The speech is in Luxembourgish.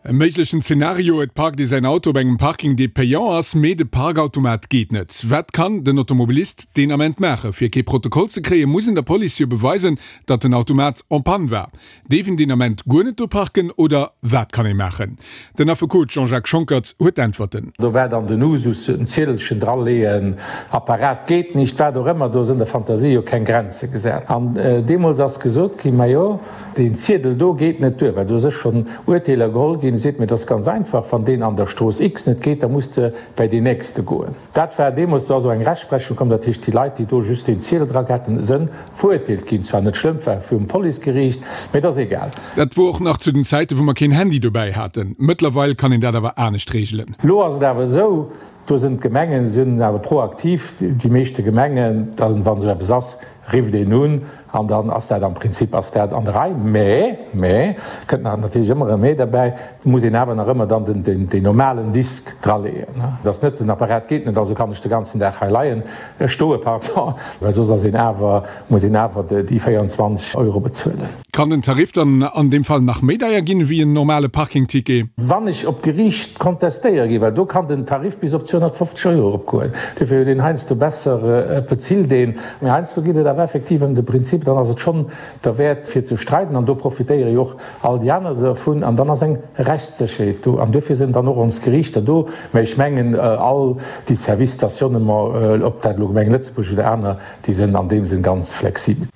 E méiglechen Zenario, Et parkt ee säin Auto op engem Parking, dee payant ass, mee de Parkautomat geet net. Wat kann den Automobilist deen Ament maachen? Fir kee Protokoll ze kréien, muss en der Police jo beweisen, datt den Automat en panne war. Deef en deen Ament guer net do parken oder wat kann ee maachen? Den Affekot Jean-Jacques Schonckert huet d'Äntwerten. Do war dann den Usus, en Ziedelchen draleeën, Apparat geht nicht, wat och ëmmer, do sënn der Fantasie jo keng Grenze gesat. An deemools ass gesot ginn, majo, deen Ziedel do geet net duer, well do sech schonn Urteeler geholl ginn, seet mir, et ass ganz einfach, wann deen an der Strooss X net geet, da muss de bäi deen nächste goen. Dat war deemools, do ass och eng Rechtsprechung komm, dat heescht, déi Leit, déi do just deen Ziedel dra gehat hunn, sënn verurteelt ginn. Zwar net schlëmm, war vum Policegeriicht, mee et ass egal. Dat wor och nach zu den Zäiten, wou mer keen Handy dobäi haten. Mëttlerweil kann een dat awer anescht reegelen. Lo ass et awer esou, do sinn d'Gemengen sinn awer proaktiv, déi meeschte Gemengen, dann, wann esou eppes ass, rifft een un an dann ass dat am Prinzip ass dat an der Rei. Mä, mä, kënnt nach natierlech ëmmer e Mä derbäi, muss een awer nach ëmmer dann den, den, deen normalen Disk draleeën. Et ass net, den Apparat geet net, also kann ech de ganzen Dag hei leien, stoe, pardon, well soss ass een awer, muss een awer déi 24 Euro bezuelen. Kann den Tarif dann an deem Fall nach méi deier ginn ewéi en normale Parkingticket? Wann ech op d'Geriicht kontestéiere ginn, well do kann den Tarif bis op 250 Euro eropgoen, duerfir huet een heiansdo besser, et bezilt een, mee heiansdo geet et awer effektiv ëm de Prinzip, dann ass et schonn derwäert fir ze streiden an do profitéiere jo och all déi aner dervun an dann ass eng Rechtssécherheet do an duerfir sinn dann och ons Geriichter do. Mä ech mengen all déi Services stationnement, ob dat elo Gemeng Lëtzebuerg oder aner, déi sinn an deem Sënn ganz flexibel.